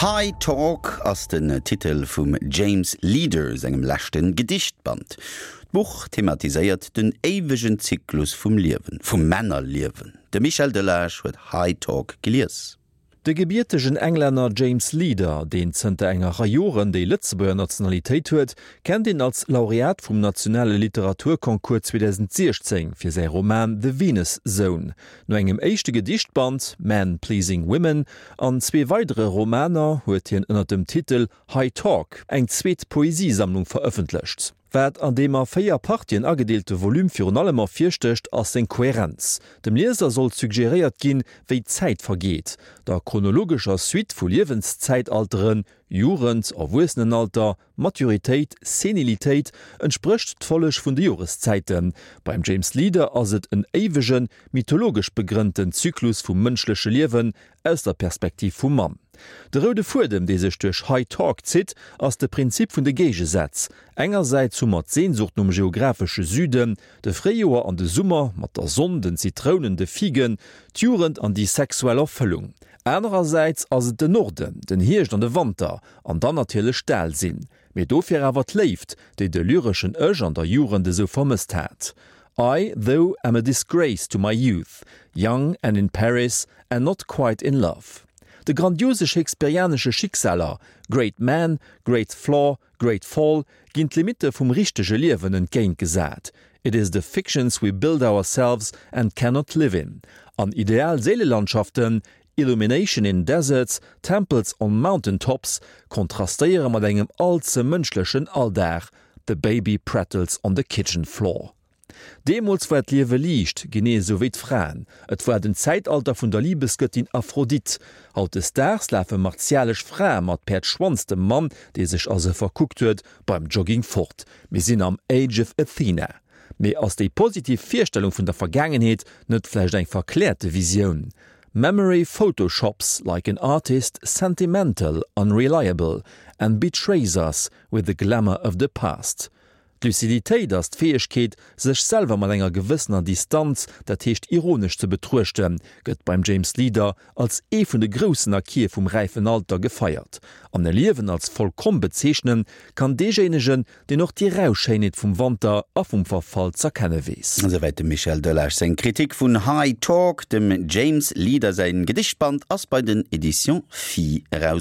High Talk ass den Titel vum James Leader sengem leschte Gedichtband. D'Buch thematiséiert den éiwegen Zyklus vum Liewen, vum Männerliewen. De Michel Delage huet High Talk gelies. De gebiertegen Englänner James Leader, deen zënter enger Rei Joren déi Lëtzebuerger Nationalitéit huet, kennt een als Laureat vum nationale Literaturconcours 2016 fir säi Roman The Venus Zone. No engem éischte Gedichtband, Men Pleasing Women, an zwee weidere Romaner huet hien ënner dem Titel High Talk eng zweet Poesiesammlung verëffentlecht. Wat an deem a 4 Partien agedeelte Volume virun allem ervirstécht, ass seng Kohärenz. Dem Lieser soll suggeréiert ginn, wéi d'Zäit vergeet. Der chronologescher Suite vu Liewenszäitalteren, Jugend, Erwuessenenalter, Maturitéit, Senilitéit, entsprécht d'Folleg vun de Joreszäiten. Beim James Leader ass et en éiwegen, mythologesch begrënnten Zyklus vum mënschleche Liewen aus der Perspektiv vum Mann. De roude Fuedem, dee sech duerch High Talk zitt, ass de Prinzip vun de Géigesätz. Engersäits hu mer d'Sehnsucht nom geographesche Süden, de Fréijoer an de Summer mat der Sonn, den Zitrounen, de Figen, d'Jugend an déi sexuell Erfëllung. Anerersäits ass et den Norden, den Hierscht an de Wanter, an dann natierlech d'Alsinn. Mee dofir awer d'Léift, déi de lyreschen Ech an der Jugend esou vermësst hat. I, though, am a disgrace to my youth, young and in Paris and not quite in love. De grandiose shakespearianesche Schicksaler, Great man, great flaw, great fall, ginn d'Limitte vum richtege Liewen entgéintgesat, It is the fictions we build ourselves and cannot live in. An ideal Séilelandschaften, Illumination in deserts, temples on mountain tops, kontrastéiere mat engem all ze mënschlechen Alldag, The baby prattles on the kitchen floor. Deemools war d'Liewe liicht, genee esou wéi d'Fraen. Et war den Zäitalter vun der Libesgëttin Aphrodite. Hautdesdaags lafe martialesch Frae mat Päerdschwanz dem Mann, dee sech a se verkuckt huet, beim Jogging fort. Mir sinn am Age of Athena. Mee ass déi positiv Virstellung vun der Vergaangenheet net vläicht eng verkläerte Visioun? Memory photoshops like an artist sentimental, unreliable and betrays us with the glamour of the past. D'Luciditéit ass d'Fäegkeet, sech selwer mat enger gewëssener Distanz, dat heescht ironesch ze betruechten, gëtt beim James Leader als ee vun de groussen Acquise vum räifen Alter gefeiert. An e Liewen als vollkomm bezeechnen kann deejéinegen, deen och déi rau Schéinheet vum Wanter a vum Verfall z'erkenne weess. Esouwäit dem Michel Delage seng Kritik vun High Talk. Dem James Leader säin Gedichtband ass bei den Editions Phi eraus.